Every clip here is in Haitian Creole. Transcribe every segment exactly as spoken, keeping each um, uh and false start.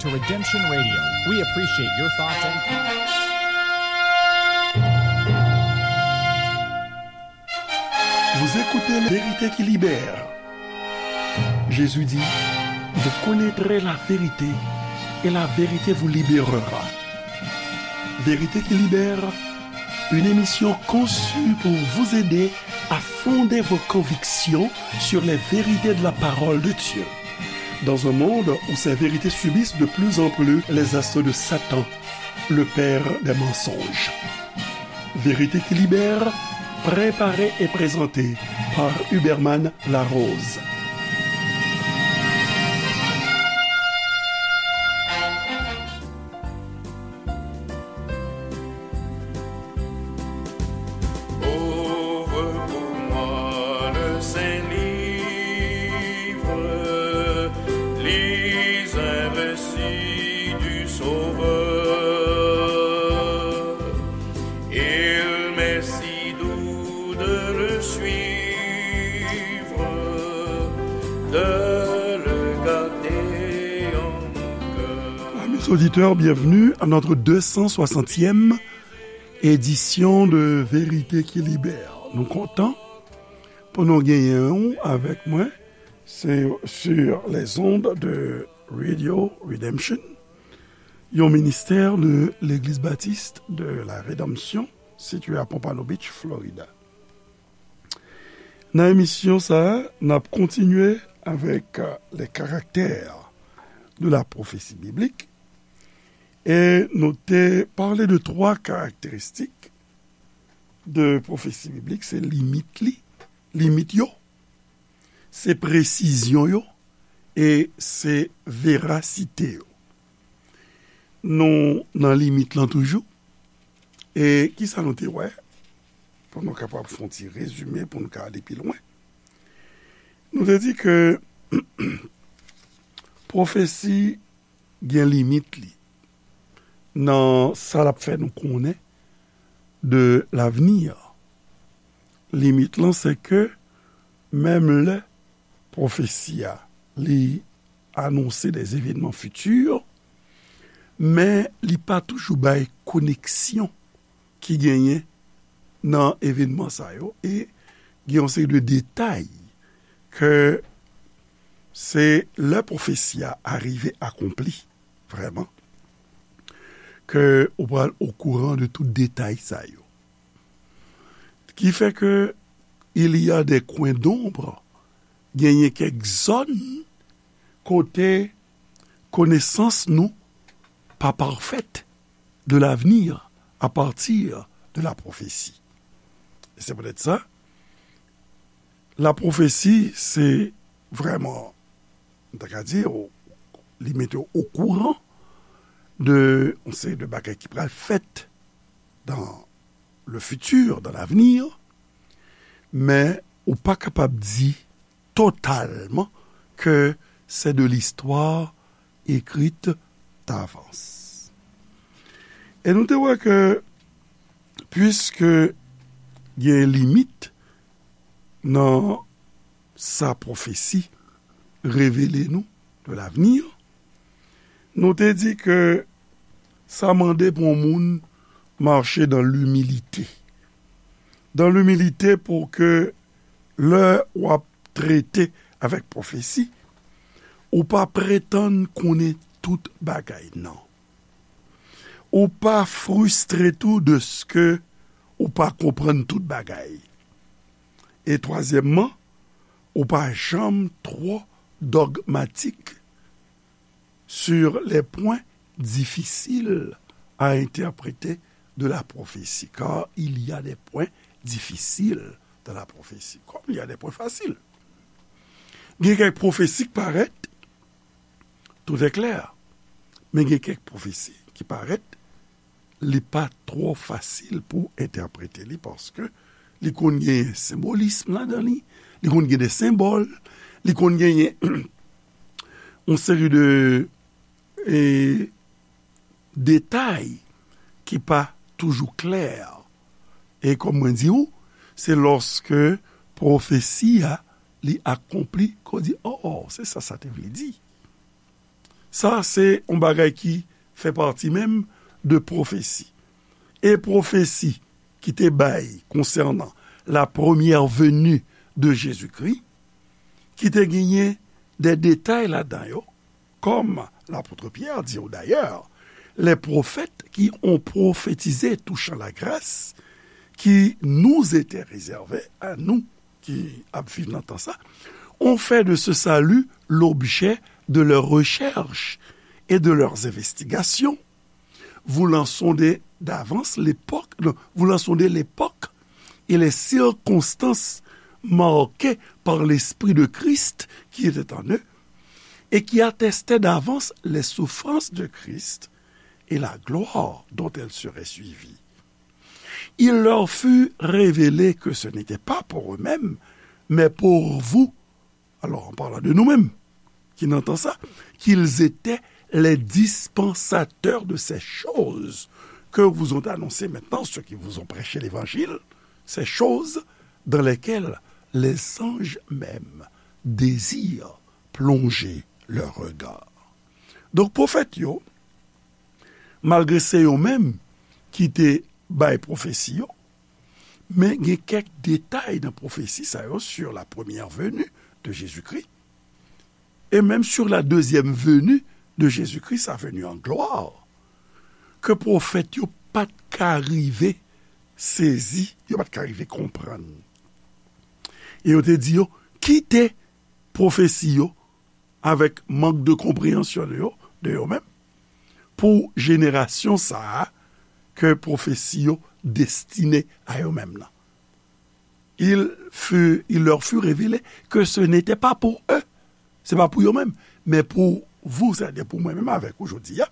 to Redemption Radio. We appreciate your thoughts and comments. Vous écoutez La Vérité qui libère. Jésus dit, vous connaîtrez la vérité et la vérité vous libérera. Vérité qui libère, une émission conçue pour vous aider à fonder vos convictions sur les vérités de la parole de Dieu. Dans un monde où ces vérités subissent de plus en plus les assauts de Satan, le père des mensonges. Vérité qui libère, préparée et présentée par Huberman Larose. Ouvre pour moi le saint livre, lis un récit du Sauveur. Il m'est si doux de le suivre, de le garder en cœur. Amis auditeurs, bienvenue à notre deux cent soixantième édition de Vérité qui Libère. Nou kontan pou nou genyen w avèk mwen. Se sur les ondes de Radio Redemption, yon ministè de Legliz Batis de la Redanmsyon, sitiye a Pompano Beach, Florida. Nan emisyon sa a, n ap kontinye avèk, euh, les caractères de la prophétie biblique. E nou te pale de twa karakteristik de pwofesi biblik, se limit li, limit yo, se presizyon yo, e se verasite yo. Nou nan limit lan toujou. E kisa nou te wè? Pou nou kapab fè yon ti rezime, pou nou ka ale pi lwen. Nou te di ke pwofesi gen limit li nan sa l ap fè nou konnen de lavni. Limit lan, se ke menm lè pwofesi a, li anonse des événements futurs, men li pa toujou bay koneksyon ki genyen nan evenman sa yo, e gen yon seri de detay ke se lè pwofesi a arive akonpli, vrèman, ke ou pral okouran de tout detay sa yo. Ki fè ke il y a des coins d'ombre, genyen kèk zòn kote konesans nou pa parfèt de l'avenir à partir de la prophétie. E se poutèt sa, la pwofesi, se vrèman, m ta ka di, ou, li mete w okouran de yon seri de bagay ki pral fèt dans le futur, dans l'avenir, men ou pa kapab di totalman ke c'est de l'histoire écrite d'avance. E nou te wè ke, puiske gen limit nan sa pwofesi revele nou de l'avenir, nou te di ke sa mande pou yon moun mache dans l'humilité. Dans l'humilité pou ke lè w ap trete avèk pwofesi, ou pa pretann konnen tout bagay, non. Ou pa fristre tou deske ou pa konprann tout bagay. E twazyèmman, ou pa janm twò dogmatik sur les points difficiles à interpréter de la prophétie, car il y a des points difficiles dans la prophétie, comme il y a des points faciles. Gen kèk pwofesi k parèt, tout est clair, men gen kèk pwofesi ki parèt li pa twò fasil pou entèprete li, paske li konn gen senbolism ladan li, li konn gen de senbòl, li konn genyen yon seri de, e, detay ki pa toujou klè. E kòm mwen di w, se lòske pwofesi a, li akonpli, ke w di, "Oh, se sa sa te vle di." Sa se yon bagay ki fè pati menm de pwofesi. E pwofesi ki te bay konsènan la première venue de Jésus-Christ, ki te genyen de detay ladan yo, comme l'apôtre Pierre dit d'ailleurs, les prophètes qui ont prophétisé touchant la grâce qui nous était réservée à nous, ki ap viv nan tan sa, ont fait de ce salut l'objet de leurs recherches et de leurs investigations, voulant sonder d'avance l'époque, non, voulant sonder l'époque et les circonstances marquées par l'Esprit de Christ qui était en eux, et qui attestaient d'avance les souffrances de Christ et la gloire dont elles seraient suivies. Il leur fut révélé que ce n'était pas pour eux-mêmes, mais pour vous, alors en parlant de nous-mêmes, ki nan tan sa, qu'ils étaient les dispensateurs de ces choses que vous ont annoncées maintenant ceux qui vous ont prêché l'évangile, ces choses dans lesquelles les anges même désirent plonger leur regard. Donk, pwofèt yo, malgre se yo menm ki te bay pwofesi yo, men gen kèk detay nan pwofesi sa yo sur la première venue de Jésus-Christ, et même sur la deuxième venue de Jésus-Christ, sa venue en gloire, ke pwofèt yo pa t ka rive sezi, yo pa t ka rive konprann. E yo te di yo, kite pwofesi yo avèk mank de konpreyansyon de yo, de yo menm, pou jenerasyon sa a ke pwofesi yo destine a yo menm nan. Il fut, il leur fut révélé que ce n'était pas pour eux, se pa pou yo menm, men pou vous, sètadi pou mwen menm avèk ou jodi a,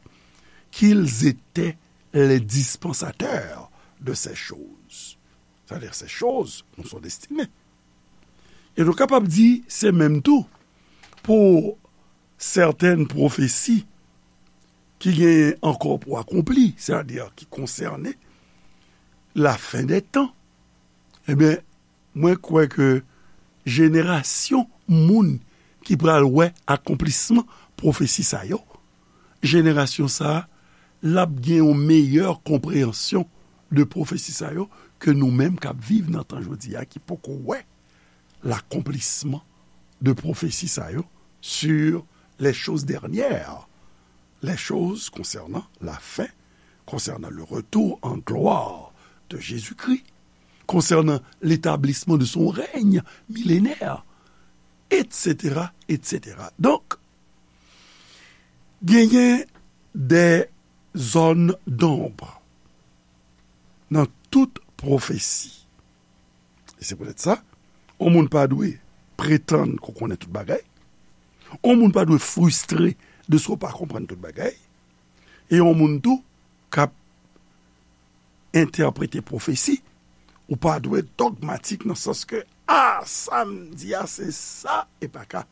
qu'ils étaient les dispensateurs de ces choses. C'est-à-dire, ces choses nous sont destinées. E nou kapab di se menm tou pou sètèn pwofesi ki genyen ankò pou akonpli, sètadi ki konsène lafen dè tan. Ebyen, mwen kwè ke jenerasyon moun ki pral wè akonplisman pwofesi sa yo, jenerasyon sa a, l ap gen yon meyè konpreyansyon de pwofesi sa yo ke nou menm k ap viv nan tan jodi a, ki poko wè l'accomplissement de pwofesi sa yo sur les choses dernières, les choses concernant la fin, concernant le retour en gloire de Jésus-Christ, concernant l'établissement de son règne millénaire, et cetera, et cetera. Donk, genyen de zòn donb nan tout pwofesi. E se poutèt sa, yon moun pa dwe pretann ke w konnen tout bagay. Yon moun pa dwe fristre de si w pa konprann tout bagay. E yon moun tou k ap entèprete pwofesi, ou pa dwe dogmatik nan sans ke, a, sa m di a, se sa, e pa ka.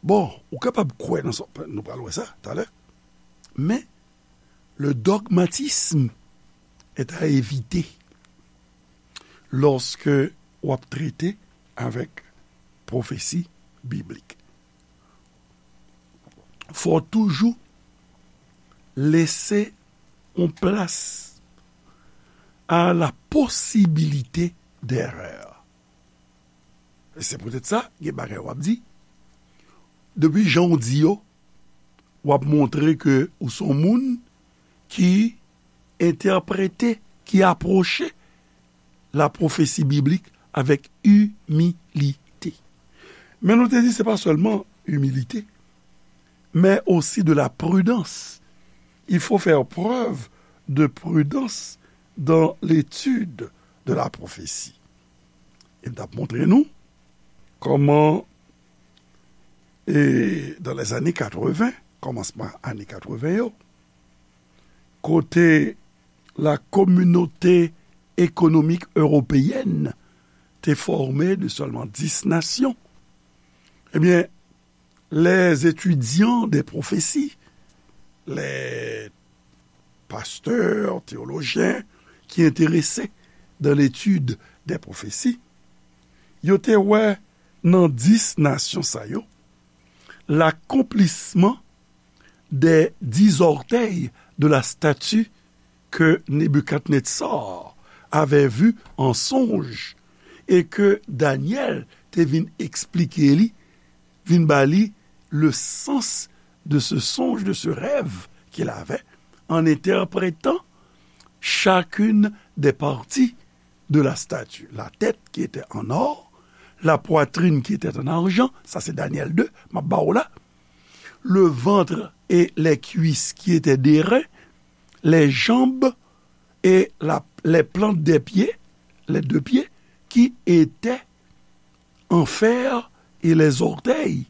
Bon, ou kapab kwè nan sa, nou pral wè sa talè, men le dogmatisme est à éviter lorsque w ap trete avèk pwofesi biblik. Fò w toujou lese yon plas à la possibilité d'erreur. E se poutèt sa, gen bagay w ap di, depi jan w di yo, w ap montre ke ou se yon moun ki entèprete, ki apwoche la pwofesi biblik avèk imilite. Men nou te di se pa sèlman imilite, mais aussi de la prudence. Il faut faire preuve de prudence dans l'étude de la prophétie. E m t ap montre nou kòman, e, dans les années quatre-vingts, kòmansman ane katreven yo, kote la Communauté économique européenne te fòme de sèlman dis nasyon. Ebyen, les étudiants des prophéties, les pasteurs, théologiens qui intéressés dans l'étude des prophéties, yo te wè nan dis nasyon sa yo, l'accomplissement des dix orteils de la statue que Nebuchadnezzar avait vue en songe et que Daniel te vin eksplike li, vin ba li le sens de ce songe, de ce rêve qu'il avait, en interprétant chacune des parties de la statue. La tête qui était en or, la poitrine qui était en argent, sa se Daniel de, m ap ba w la, le ventre et les cuisses qui étaient d'airain, les jambes et la, les plantes des pieds, les deux pieds, qui étaient en fer, et les orteils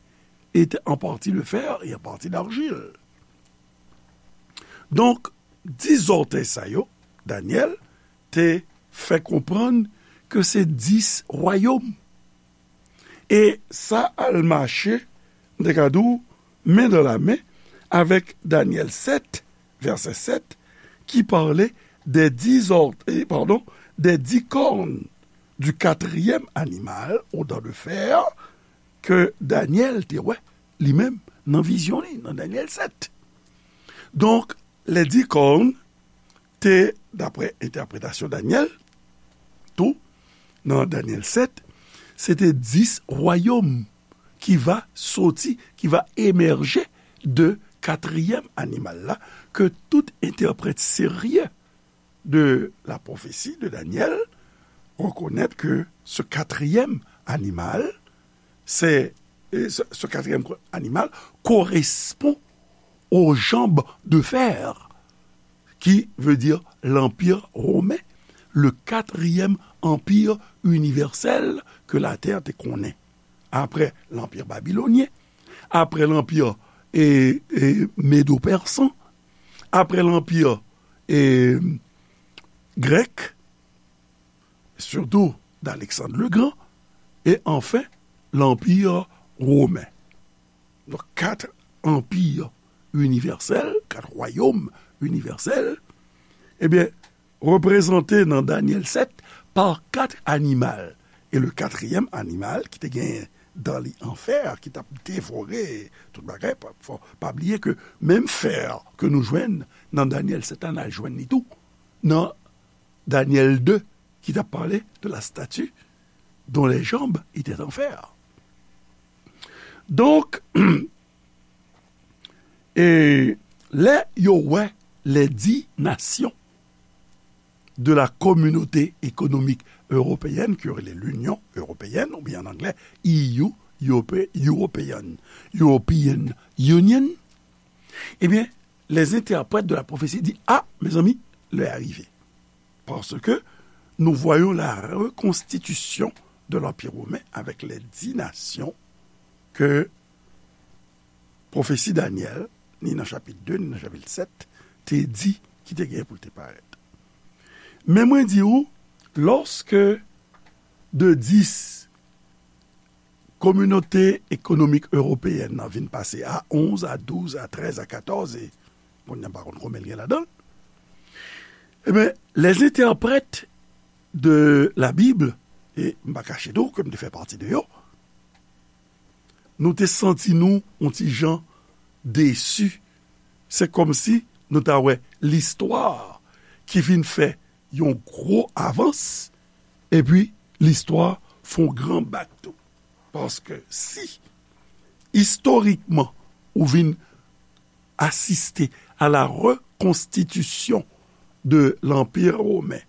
étaient en partie de fer et en partie d'argile. Donk, dis zòtèy sa yo, Danyèl te fè konprann ke se dis wayòm. E sa al mache, m te ka di w, men dan la men avèk Danyèl sèt, vèsè sèt, ki pale des dix or-, eh, pardon, des dix cornes du quatrième animal aux dents de fer ke Danyèl te wè li menm nan vizyon li, nan Danyèl sèt. Donk, les dix cornes te, daprè entèpretasyon Danyèl, tou, nan Danyèl sèt, se te dis wayòm ki va soti, ki va emèje de katriyèm animal la, ke tout entèprèt serye de la prophétie de Daniel reconnaît que ce quatrième animal, c'est, euh, ce, ce quatrième co-, animal correspond aux jambes de fer, qui veut dire l'Empire romain, le quatrième empire universel ke latè te konnen. Apre l'Empire babylonien, apre l'Empire, e, e, médo-persan, apre l'Empire, e, grèk, surtout d'Alexandre le Grand, et enfin l'Empire romain. Donc, quatre empires universels, quatre royaumes universels, ebyen, reprezante nan Danyèl sèt pa kat animal. E le katriyèm animal ki te gen dan li an fè, ki t ap devore tout bagay, pa, fò, pa bliye ke menm fè ke nou jwenn nan Danyèl sèt la, n al jwenn li tou nan Danyèl de, ki t ap pale de la statue dont les jambes étaient en fer. Donk, e lè yo wè les dix nations de la Communauté économique européenne, ki rele l'Union européenne, oubyen an anglè, E U, Europe-, European, European Union, ebyen, les interprètes de la prophétie di, a, mezanmi, lè a rive. Parce que nous voyons la reconstitution de l'Empire romain avec les dix nations que pwofesi Danyèl, ni nan chapit de, ni nan chapit sèt, te di ki te gen pou l te parèt. Men mwen di w, lòske de dis Kominote Ekonomik Ewopeyèn nan vin pase a onz, a douz, a trèz, a katòz, e kounye a m pa konn konbyen l gen ladan l. Ebyen, les interprètes de la Bible, e m pa kache tou ke m te fè pati de yo, nou te santi nou yon ti jan desi. Se kòmsi nou ta wè listwa ki vin fè yon gwo avans, epi listwa fè yon gran bak tou. Paske si, istorikman, ou vin asiste à la reconstitution de l'Empire romain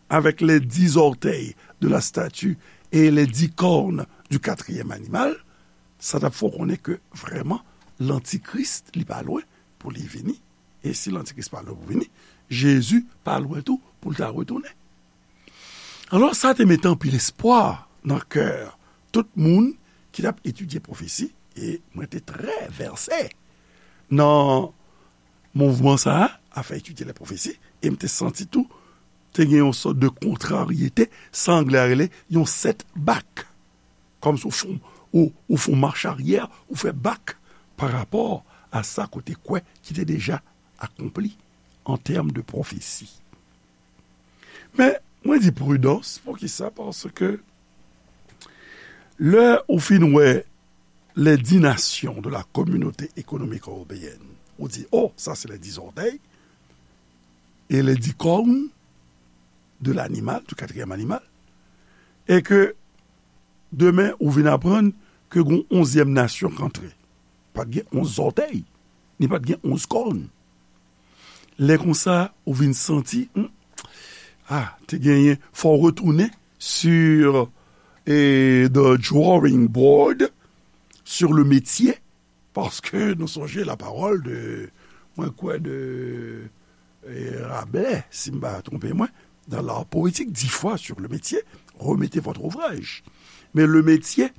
avec les dix orteils de la statue et les dix cornes du quatrième animal, sa t ap fè w konnen ke vrèman, Lantikris, li pa lwen pou li vini. E si Lantikris pa lwen pou vini, Jezi pa lwen tou pou l ta retounen. Alò, sa te mete anpil espwa nan kè tout moun ki t ap etidye pwofesi, e mwen te trè vèse nan mouvman sa a, afè etidye lè pwofesi, e m te santi tou, te gen yon sòt de kontraryete, sa anglè a rele yon setback. Kòmsi w fè, ou, ou fè yon mach aryè, ou fè bak pa rapò a sa ke w te kwè ki te deja akonpli an tèm de pwofesi. Men, mwen di pridans, poukisa? Paske lè ou fin wè les dix nations de la Communauté économique européenne, Ou di, oh, ça c'est les dix orteils et les dix cornes de l'animal, du quatrième animal, et que demen ou vin aprann ke gon onzyèm nasyon k antre. Pa t gen onz zòtèy, ni pa t gen onz kòn. Lè konsa, ou vin santi, hmm, ah, te genyen, fò w retounen sur, eh, the drawing board, sur le métier, paske nou sonje la parole de, mwen kwè de, eh, Rabelais, si m pa twonpe mwen, dans l'art poétique, dix fois sur le métier, remettez votre ouvrage. Mais le métier,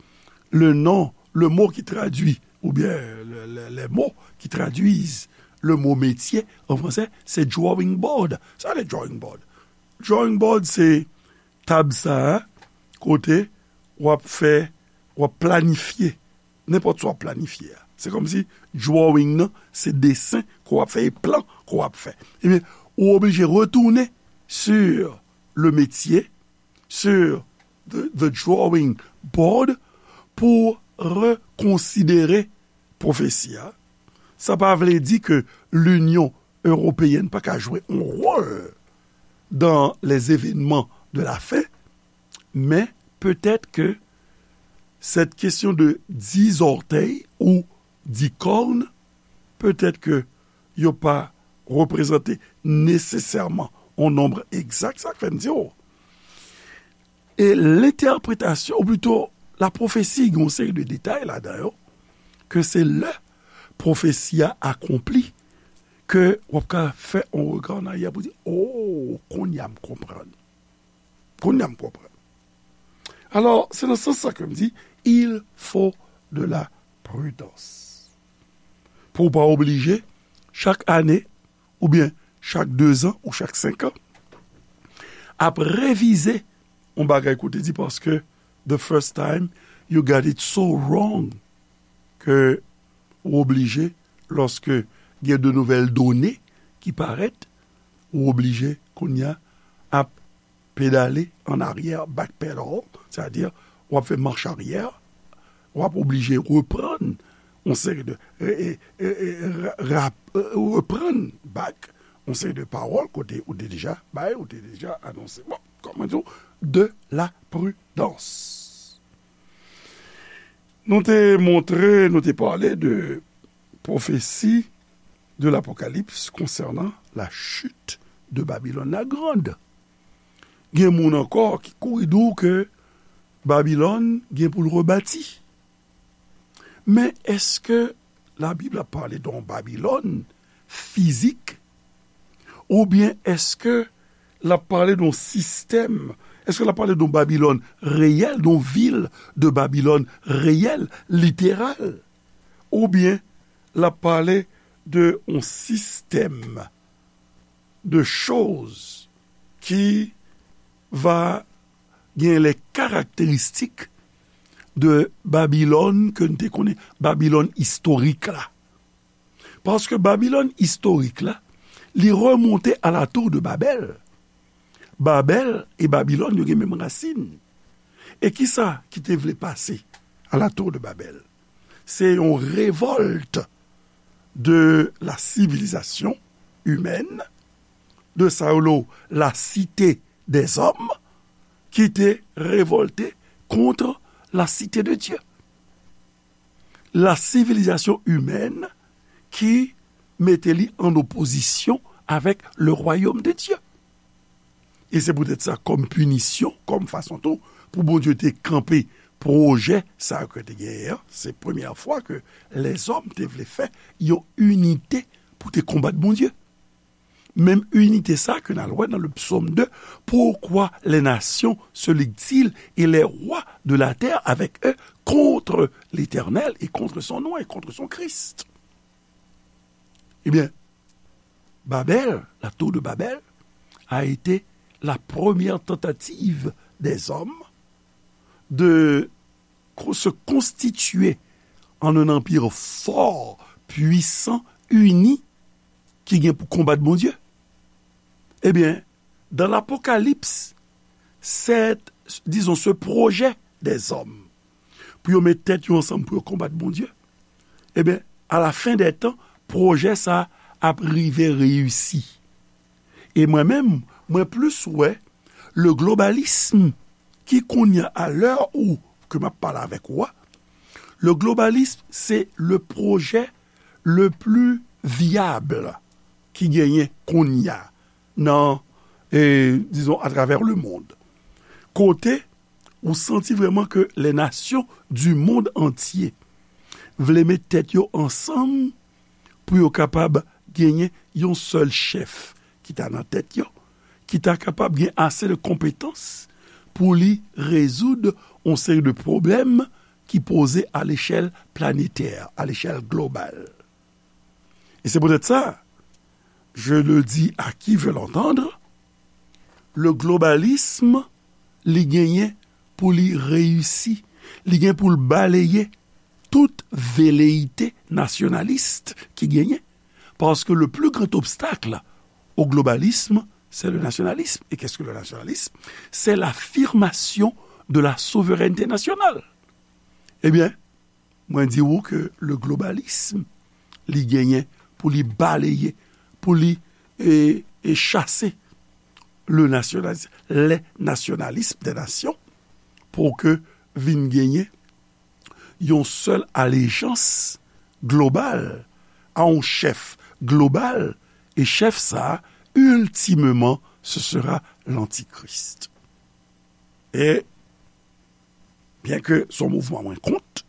le nom, le mot qui traduit, ou bien le, le, les mots qui traduisent le mot métier en français, c'est drawing board. Sa le drawing board. Drawing board, se tab sa a, kote w ap fè, w ap planifye, nenpòt sa w ap planifye a. Se kòmsi drawing nan, se desen ke w ap fè, e plan ke w ap fè. Ebyen, ou oblije retounen sur le métier, sur the, the drawing board, pou rekonsidere pwofesi a. Sa pa vle di ke Linyon Ewopeyèn pa ka jwe yon wòl dans les événements de la fin, men petèt ke cette question de dix orteils ou dix cornes, petèt ke yo pa reprezante nesesèman yon nonb egzak, sa k fè m di w. E lentèpretasyon, ou plito la pwofesi, gen yon seri de detay ladan yo, ke se lè pwofesi a akonpli, ke w ap ka fè yon rega an aryè pou di, oh, kounye a m konprann. Kounye a m konprann. Alò, se nan sans sa ke m di, il faut de la prudence. Pou w pa oblije, chak ane, oubyen chak dezan ou chak senk an, ap revize yon bagay ke w te di, paske the first time you got it so wrong, ke ou oblije, lòske gen de nouvèl done ki parèt, ou oblije kounye a ap pedale an aryè, backpedal, sètadi w ap fè mach aryè, w ap oblije reprann yon seri de, e, e, e, e, ra-, ra-, e, reprann back yon seri de pawòl kote ou te deja bay, ou te deja anonse. Bon, kòman di w, de la prudence. Nou te montre, nou te pale de pwofesi de l'Apocalypse concernant la chute de Babylone la Grande. Gen moun ankò ki kouri di w ke Babilòn gen pou l rebati. Men èske Labib ap pale de yon Babilòn fizik? Oubyen èske l ap pale de yon sistèm? Èske l ap pale de yon Babilòn reyèl, de yon vil de Babilòn reyèl, literal? Oubyen l ap pale de yon sistèm de choz ki va gen les caractéristiques de Babilòn ke n te konnen, Babilòn istorik la? Paske Babilòn istorik la, li remonte à la tour de Babel. Babèl e Babilòn, yo gen menm rasin. E kisa ki te vle pase à la tour de Babel? Se yon revòlt de la civilisation humaine, de sa yo rele la cité des hommes, ki te revòlte contre la cité de Dieu. La civilisation humaine ki mete li an opozisyon avèk le royaume de Dieu. E se poutèt sa, kòm pinisyon, kòm fason tou, pou Bondye te kanpe pwojè sa yo ke te genyen an, se premyè fwa ke lèzòm te vle fè yon inite pou te konbat Bondye. Menm inite sa ke n al wè nan le psaume deux, pourquoi les nations se liguent-ils et les rois de la terre avec eux contre l'Éternel et contre son nom et contre son Christ? Ebyen, Babèl, la tour de Babel, a été la première tentative des hommes de co-, se constituer en un empire fort, puissant, uni, ki gen pou konbat Bondye. Ebyen, dans l'Apocalypse, cette, disons, ce projet des hommes, pou yo met tèt yo ansanm pou yo konbat Bondye, ebyen, à la fin des temps, pwojè sa ap rive reyisi. E mwen menm, mwen plis wè le globalism ki kounye a, a lè ou ke m ap pale avèk ou a, le globalism se le pwojè le pli vyab ki genyen kounye a nan, e, dizon, atravè le mond. Kote ou santi vrèman ke les nations du monde entier vle met tèt yo ansanm pou yo kapab genyen yon sèl chèf ki ta nan tèt yo, ki ta kapab gen ase de konpetans pou li rezoud yon seri de pwoblèm ki poze a lechèl planetè, a lechèl global. E se poutèt sa, je le dis à qui veut l'entendre, le globalism, li genyen pou li reyisi, li gen pou l baleye tout veleyite nasyonalis ki genyen, paske le plus grand obstacle au globalisme, c'est le nationalisme. Et qu'est-ce que le nationalisme? C'est l'affirmation de la souveraineté nationale. Ebyen, mwen di ou ke le globalism, li genyen pou li baleye, pou li, e, e chase le nationalisme, les nationalismes des nations, pou ke vin genyen yon sèl alejans global a yon chèf global, e chèf sa a, ultimement, ce sera l'antichrist. E byen ke se yon mouvman mwen kont,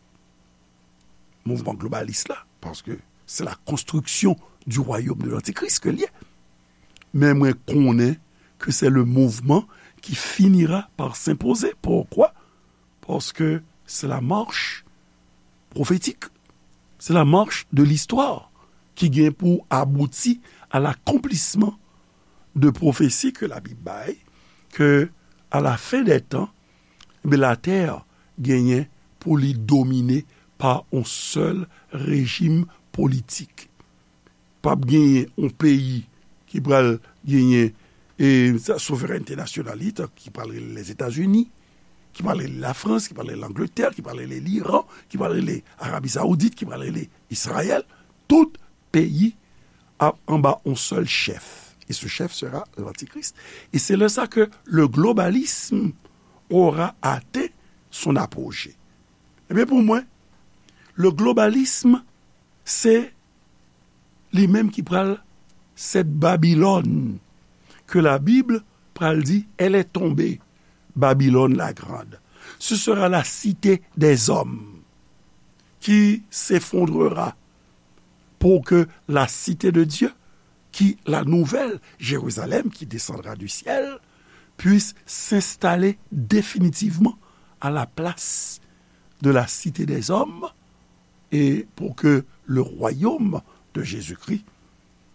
mouvman globalis la, paske c'est la construction du royaume de l'antichrist ke l ye. Men mwen konnen ke c'est le mouvement qui finira par s'imposer. Pourquoi? Paske c'est la marche prophétique, c'est la marche de l'histoire ki gen pou abouti à l'accomplissement de pwofesi ke Labib bay, ke à la fin des temps, ebyen, latè genyen pou li domine pa yon sèl rejim politik. P ap genyen yon peyi ki pral genyen, e, sa, souverènte nasyonal li, ki pral rele Lèzetazini, ki pral rele Lafrans, ki pral rele Langletè, ki pral rele Liran, ki pral rele Arabi Saoudit, ki pral rele Izrayèl. Tout peyi ap anba yon sèl chèf. Et ce chef sera l'antichrist. Et c'est là ça que le globalisme aura atteint son apogée. Ebyen, pou mwen, le globalisme, se li menm ki pral, cette Babylone que la Bible pral di, elle est tombée, Babylone la grande. Ce sera la cité des hommes qui s'effondrera pour que la cité de Dieu, qui, la nouvelle Jérusalem qui descendra du ciel, puisse s'installer définitivement à la place de la cité des hommes, et pour que le royaume de Jésus-Christ,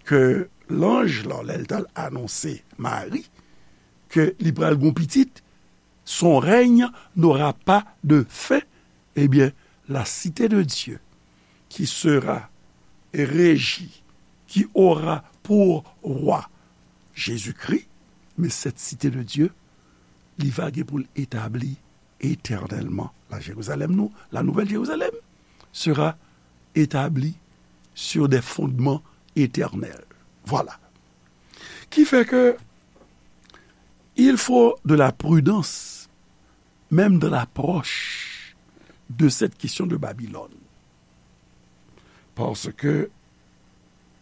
ke lanj lan, lè l t al anonse Mari ke li pral gen pitit, son règne n'aura pas de fin, eh bien, la cité de Dieu qui sera régie, qui aura pour roi Jésus-Christ, mais cette cité de Dieu, li va gen pou l etabli éternellement. La Jérusalem nou, la nouvelle Jérusalem sera établie sur des fondements éternels. Voilà. Ki fè ke il faut de la prudence, même dans l'approche de cette question de Babylone. Paske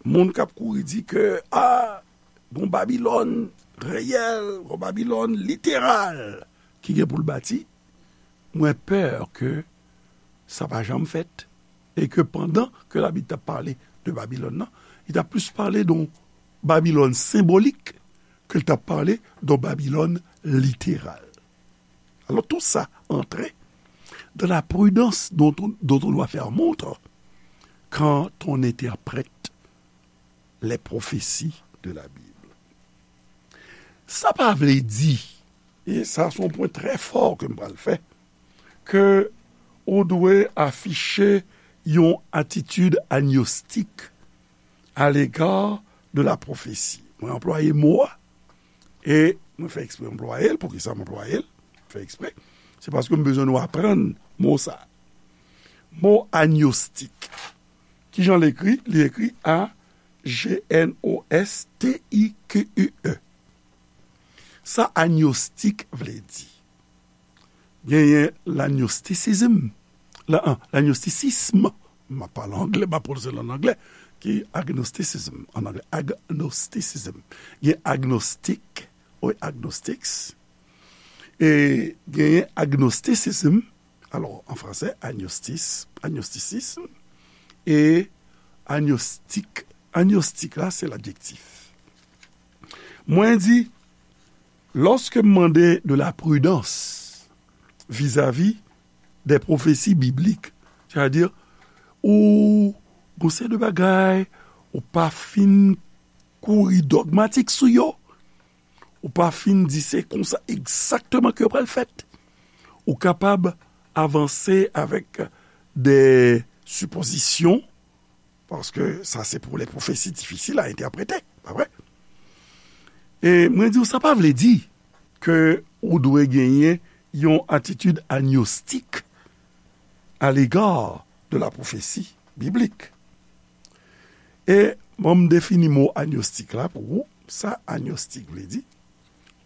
moun k ap kouri di ke, a, gon Babilòn reyèl, gon Babilòn literal ki gen pou l bati, mwen pè ke sa pa janm fèt. E ke pandan ke Labib t ap pale de Babilòn nan, li t ap plis pale de yon Babilòn senbolik ke l t ap pale de yon Babilòn literal. Alors tout ça entre dans la prudence dont on, dont on doit faire montre quand on interprète les prophéties de la Bible. Sa pa vle di, e sa se yon pwen trè fò ke m pral fè, ke ou dwe afiche yon atitid agnostik à l'égard de la prophétie. Mwen anplwaye mo a, e mwen fè eksprè anplwaye l. Poukisa m anplwaye l? Mwen fè eksprè. Se paske m bezwen nou aprann mo sa. Mo agnostik. Kijan l ekri? Li ekri A G N O S T I Q U E. Sa agnostik vle di? Genyen lagnostisizm. La, an, lagnostisism. M ap pale anglè, m ap pwononse l an anglè, ki agnosticism an anglè. Agnosticism. Gen agnostik, wi, agnostics. E genyen agnosticism, alò, an fransè, agnostis, agnosticism, e agnostik. Agnostik la, se ladjektif. Mwen di, lòske m mande de la pridans vizavi de pwofesi biblik, sètadi, ou gon seri de bagay, ou pa fin kouri dogmatik sou yo, ou pa fin di se konsa egzakteman ke yo pral fèt, ou kapab avanse avèk de sipozisyon, paske sa se pou lè pwofesi difisil a entèprete, pa vre? E mwen di w, sa pa vle di ke ou dwe genyen yon atitid agnostik à l'égard de la prophétie biblique. E bon, m defini mo agnostik la pou ou. Sa agnostik vle di?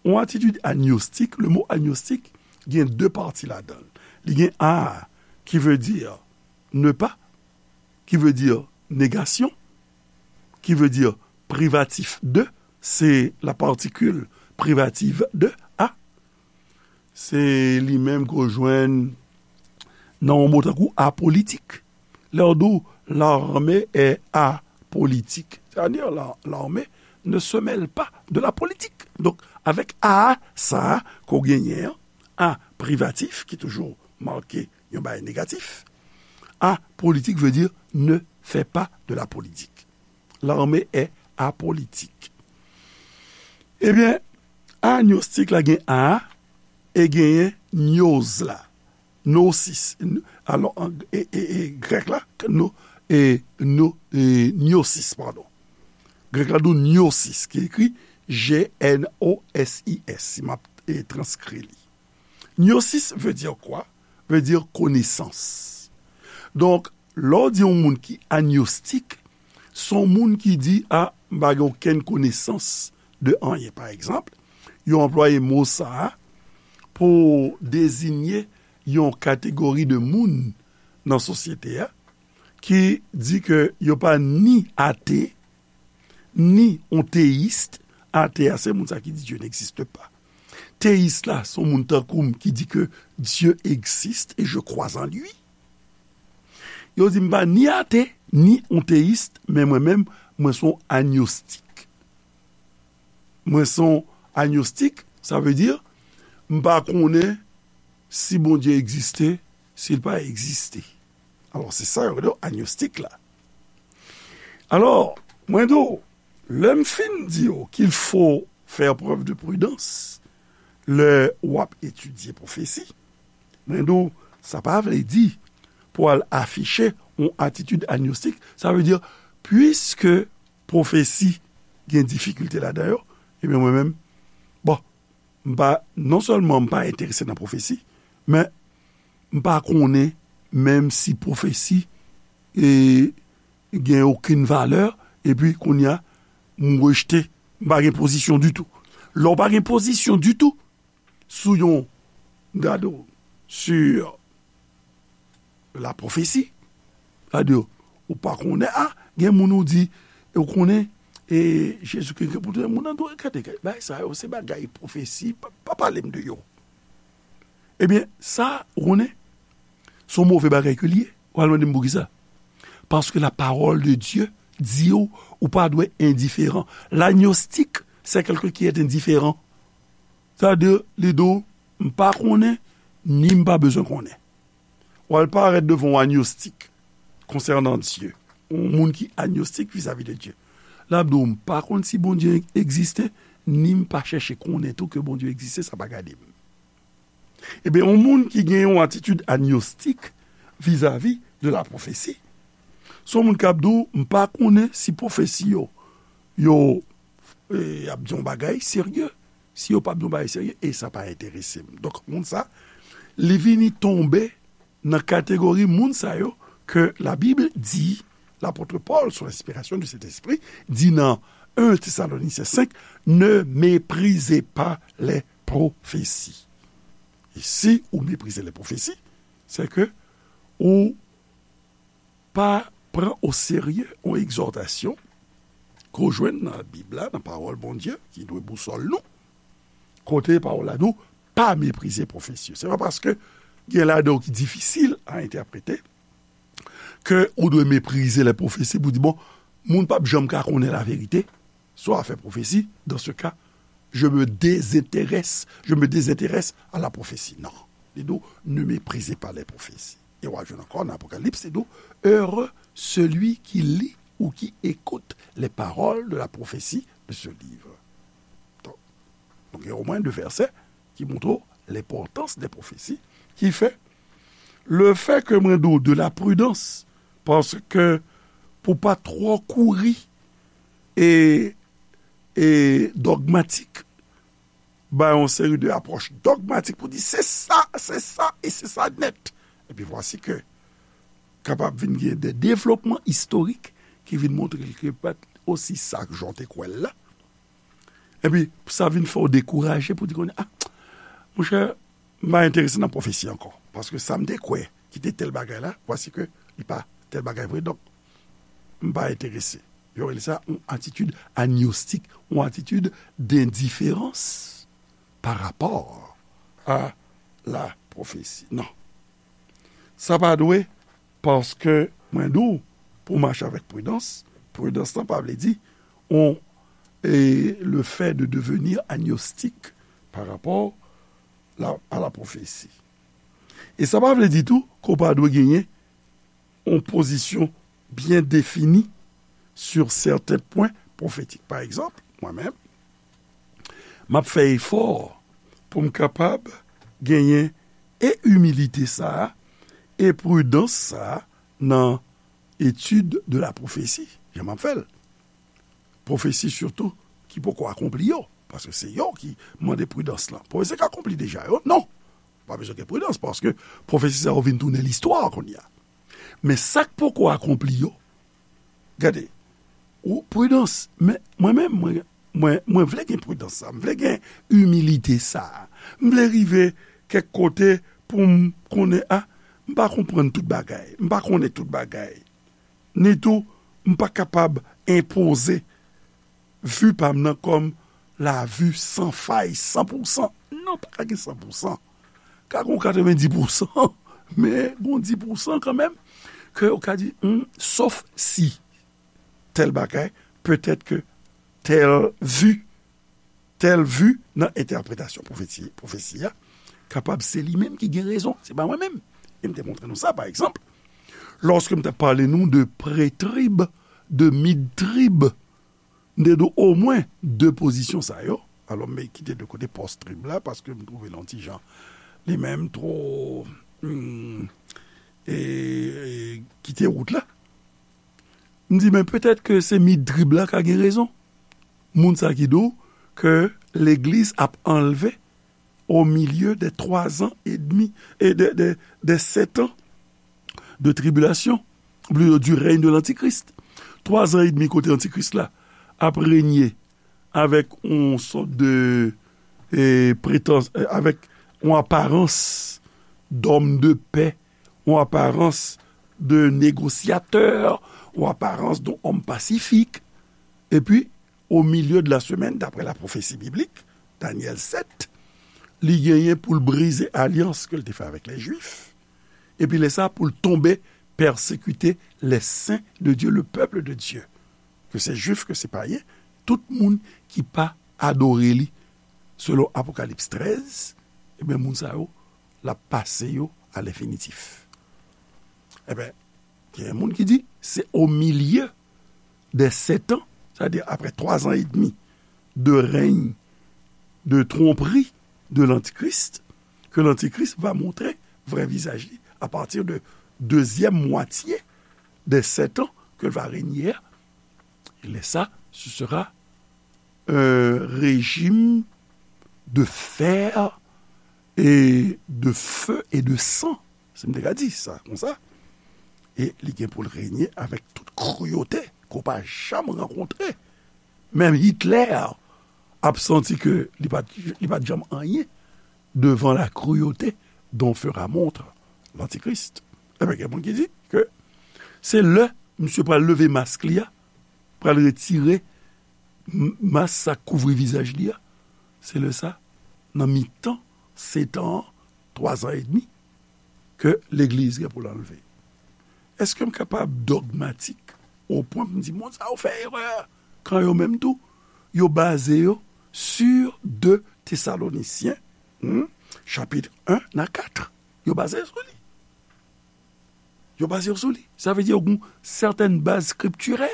Yon atitid agnostik, le mo agnostik gen de pati ladan l. Li gen a, qui veut dire ne pas, qui veut dire négation, qui veut dire privatif de, c'est la particule privative de a. Se li menm ke w jwenn nan yon mo tankou apolitik. Lè yo di w, l'armée est apolitique. C'est-à-dire, la, l'armée ne se mêle pas de la politique. Donk, avèk a sa a ke w genyen an, a privatif, ki toujou make yon bagay negatif, apolitik vle di ne fait pas de la politique. L'armée est apolitique. Ebyen, agnostik la gen a, e genyen gnoz la. Gnosis. Alò, an, e, e, e, grèk la, no, e, no, e, gnosis, padon. Grèk la di w gnosis, ki ekri G N O S I S, si m ap, e, transkri li. Gnosis veut dire quoi? Veut dire connaissance. Donk, lè w di yon moun ki agnostik, se yon moun ki di, a, m pa gen okenn konesans de anyen. Pa egzanp, yo anplwaye mo sa a pou dezinye yon kategori de moun nan sosyete a ki di ke yo pa ni ate, ni yon teyis. Ate a, se moun sa ki di Dieu n'existe pas. Teyis la, se yon moun tankou m ki di ke Dieu existe et je crois en lui. Yo di m pa ni ate, ni yon teyis, men mwen menm, mwen se yon agnostik. Mwen se yon agnostik, sa vle di, m pa konnen si Bondye egziste, si l pa egziste. Alò, se sa yo rele agnostik la. Alò, mwen di w, lè m fin di w qu'il faut faire preuve de prudence lè w ap etidye pwofesi, mwen di w, sa pa vle di pou al afiche yon atitid agnostik. Sa vle di, piske pwofesi gen difikilte ladan yo, ebyen, mwen menm, bon, m pa, non sèlman m pa enterese nan pwofesi, men m pa konnen menm si pwofesi, e, gen okenn valè, epi kounye a, m rejte, m pa gen pozisyon ditou. Lè w pa gen pozisyon ditou sou yon, gade w, sur la prophétie, sètadi, ou pa konnen, a, gen moun ou di, e ou konnen, e Jezikri gen pou tounen, moun nan di w, gade, gade, bagay sa yo, se bagay pwofesi, pa, pa pale m de yo. Ebyen, sa, ou konnen, se yon move bagay ke l ye. Ou al mande m poukisa? Parce que la parole de Dieu di w, ou pa dwe endiferan. L'agnostique, c'est quelqu'un qui est indifférent. Sètadi, li di w, m pa konnen, ni m pa bezwen konnen. W al parèt devan yon agnostik konsènan Dye, yon moun ki agnostik vizavi de Dye. L ap di w, m pa konn si Bondye egziste, ni m pa chèche konnen tou ke Bondye egziste, sa pa gade m. Ebyen, yon moun ki gen yon atitid agnostik vizavi de la pwofesi, se yon moun k ap di w, m pa konnen si pwofesi yo, yo, e, ap di yon bagay serye, si yo p ap di yon bagay serye, e sa pa enterese m. Donk, moun sa, li vini tonbe nan kategori moun sa yo ke Labib di Lapot Pòl, sou lenspirasyon di Sentespri, di nan en Thessaloniciens cinq, ne méprisez pas les prophéties. E si ou meprize lè pwofesi, se ke ou pa pran o serye yon egzòtasyon ke w jwenn nan Bib la, nan pawòl Bondye, ki dwe bousòl nou, kote pawòl la di w, pa meprize pwofesi yo. Se pa paske gen ladan yo ki difisil a entèprete ke ou dwe meprize lè pwofesi pou di, bon, moun p ap janm ka konnen laverite sou afè pwofesi, dans ce cas, je me désintéresse, je me désintéresse à la prophétie. Non. Li di w, ne méprisez pas les prophéties. E w a jwenn ankò nan Apokalips, li di w, heureux celui qui lit ou qui écoute les paroles de la prophétie de ce livre. Donk, donk, gen omwen de vèsè ki montre w lenpòtans de pwofesi, ki fè, le fè ke mwen di w de la pridans, paske pou pa twò kouri e, e dogmatik, bay yon seri de apwòch dogmatik pou di se sa, se sa e se sa nèt. Epi vwasi ke kapab vin gen de devlopman istorik ki vin montre l ke pa t osi sa k jan w te kwè l la. Epi sa vin fè w dekouraje pou di kounye a, ah, monchè, m pa enterese nan pwofesi ankò. Paske sa m te kwè ki te tèl bagay la, vwasi ke li pa tèl bagay vre. Donk, m pa enterese. Yo rele sa yon atitid agnostik, yon atitid dendiferans pa rapò a la pwofesi. Non. Sa pa dwe, paske mwen di w, pou w mache avèk pridans, pridans lan pa vle di on, e, le fait de devenir agnostique par rapport la, à la prophétie. E sa pa vle di tou ke w pa dwe genyen yon pozisyon byen defini sur certains points prophétiques. Pa egzanp, mwen menm, m ap fè efò pou m kapab genyen e imilite sa a, e pridans sa a nan etid de la pwofesi, jan m ap fè l. Pwofesi sitou ki poko akonpli yo, paske se yo ki mande pridans lan. Pwofesi k akonpli deja yo, non. Pa bezwen gen pridans, paske pwofesi sa yo vin tounen listwa kounye a. Men sa k poko akonpli yo, gade, ou pridans, men mwen menm, mwen, mwen, mwen vle gen pridans sa, m vle gen imilite sa, m vle rive kèk kote pou m konnen, a, m pa konprann tout bagay, m pa konnen tout bagay. Ni tou, m pa kapab enpoze vi pa m nan kòm la vi san fay, san pou san. Non, pa ka gen san pou san. Ka gen yon katrevenndis pou san, men gen yon dis pou san kanmenm, ke yo ka di, hmm, sof si tèl bagay, petèt ke tèl vi, tèl vi nan entèpretasyon pwofesi, pwofesi a, kapab se li menm ki gen rezon, se pa mwen menm. E m te montre nou sa, pa egzanp, lòske m t ap pale nou de pretrib, de midtrib, m te di w omwen de pozisyon sa yo. Alò, m kite de kote pòstrib la, paske m twouve l yon ti jan, li menm, twò, hmm, e, e, kite wout la. M di, men petèt ke se midtrib la ka gen rezon. Moun sa ki di w ke legliz ap anlve au milieu des trois ans et demi, et des, des, des sept ans de tribulation, ou plito du règne de l'Antichrist. Twa zan edmi kote Antikris la ap renye avèk yon sòt de, e, pretans, e, avèk yon aparans d'homme de paix, yon aparans de négociateur, yon aparans de homme pacifique. Epi, au milieu de la semaine, d'après la prophétie biblique, Daniel sept, li genyen pou l brize alyans ke l te fè avèk lè Jwif. Epi lè sa, pou l tonbe pèsekite les saints de Dieu, le peuple de Dieu. Ke se Jwif, ke se payen, tout moun ki pa adore li, selon Apokalips trèz, ebyen, moun sa yo, l ap pase yo a lenfinitif. Ebyen, gen moun ki di, se au milieu des sept ans, c'est-à-dire après trois ans et demi de règne de tromperie de l'Antichrist, que l'Antichrist va montrer vrai visage à partir de deuxième moitié des sept ans que va régner. Et là, ça, ce sera un régime de fer et de feu et de sang. Si m te ka di sa konsa. E li gen pou l renye avèk tout kriyote ke w pa janm rankontre. Menm Hitler ap santi ke li pa t, li pa t janm anyen devan la cruauté dont fera montre l'Antichrist. Ebyen, gen moun ki di ke se lè misye pral leve mask li a, pral retire m-, mask sa k kouvri vizaj li a, se lè sa, nan mitan setan an, twa zan edmi, ke legliz gen pou l anlve. Èske m kapab dogmatik o pwen pou m di, moun sa yo fè erè? Kan yo menm tou, yo baze yo sur de Tesalonisyen, hmm, chapit en a kat. Yo baze yo sou li. Yo baze yo sou li. Sa vle di yo gen sètèn baz skriptirè.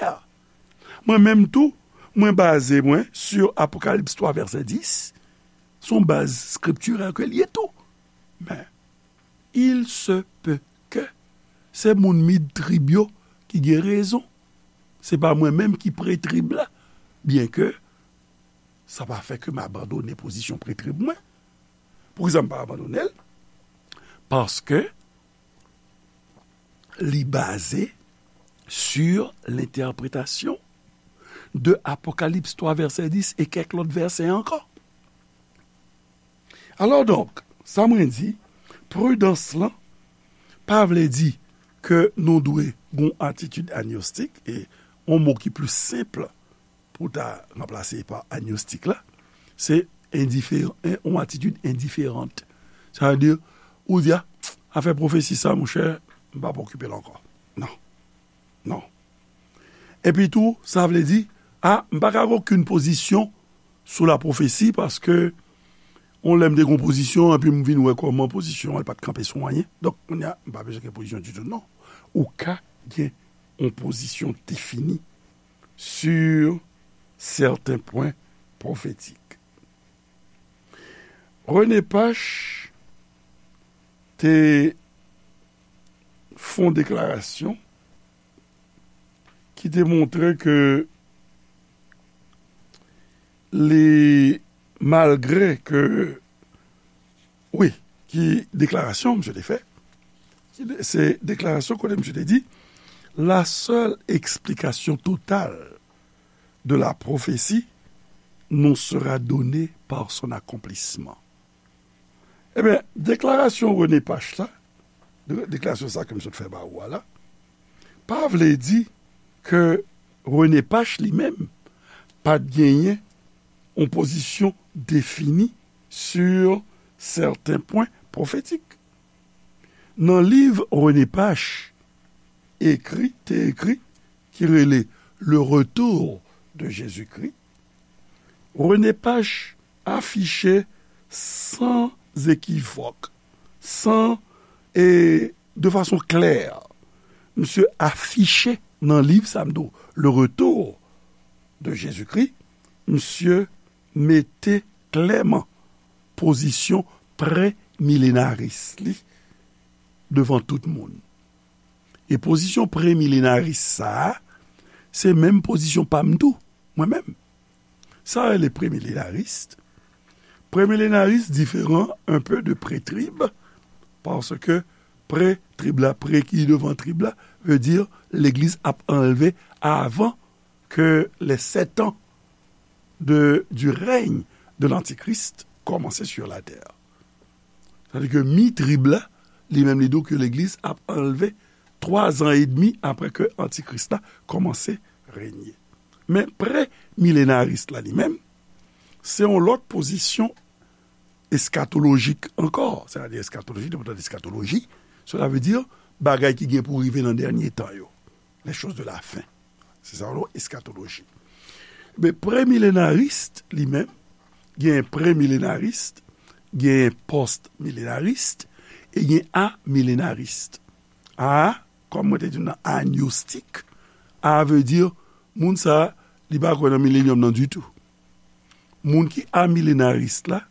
Mwen menm tou, mwen baze mwen sur Apokalips twa vèsè dis. Se yon baz skriptirè ke l ye tou. Men, il se peut que se moun mid trib yo ki gen rezon. Se pa mwen menm ki pre trib la, byenke sa pa fè ke m abandone pozisyon pre trib mwen. Poukisa m pa abandone l? Paske li baze sur l'interprétation de Apokalips twa vèsè dis e kèk lòt vèsè ankò. Alò donk, sa mwen di, pridans lan pa vle di ke nou dwe gen yon atitid agnostik, e yon mo ki pli senp pou ta ranplase pa agnostik la, se endiferan, yon atitid endiferan. Sa vle di, ou di, a, afè pwofesi sa, monchè, m p ap okipe l ankò. Non. Non. Epi tou, sa vle di, a, m pa ka gen okenn pozisyon sou la pwofesi, paske yon lè m te gen yon pozisyon, epi m vin wè kòman pozisyon an pa t kanpe sou anyen. Donk, kounye a, m pa bezwen gen pozisyon ditou, non. Ou ka gen yon pozisyon defini sur certains points prophétiques. René Pache te fè yon deklarasyon ki te montre ke li, malgre ke, wi, ki deklarasyon misye te fè, se deklarasyon kote misye te di, la seule explication totale de la prophétie nous sera donnée par son accomplissement. Ebyen, deklarasyon René Pache la, de-, deklarasyon sa ke m sot fè ba ou a la, pa vle di ke René Pache li menm pa t genyen yon pozisyon defini sur certains points prophétiques. Nan liv René Pache ekri, te ekri, ki rele Le Retour de Jésus-Christ, René Pache afiche san ekivòk, san, e de fason klè, misye afiche nan liv sa m di w, Le Retour de Jésus-Christ, misye mete klèman pozisyon premilenaris li devan tout moun. E pozisyon premilenaris sa a, se menm pozisyon pa m tou, mwen menm. Sa rele premilenaris. Premilenaris diferan un peu de pré-trib, paske pré-trib la, pré ki devan trib la, vle di legliz ap anlve avan que les sept ans de, du règne de l'Antichrist commencer sur la terre. Sa vle di ke mi trib la, li menm li di w ke legliz ap anlve twa zan edmi apre ke antikris la kòmanse renye. Men premilenaris la li menm, se yon lòt pozisyon eskatolojik ankò. Sa vle di eskatoloji, depi w tande eskatoloji, cela veut dire bagay ki gen pou rive nan dènye tan yo. Les choses de la fin. Se sa yo rele eskatoloji. Men premilenaris li menm, gen premilenaris, gen postmilenaris, e gen amilenaris. A, kòm mwen te di w nan agnostik, a vle di moun sa a, li pa kwè nan milenyòm nan ditou. Moun ki amilenaris la,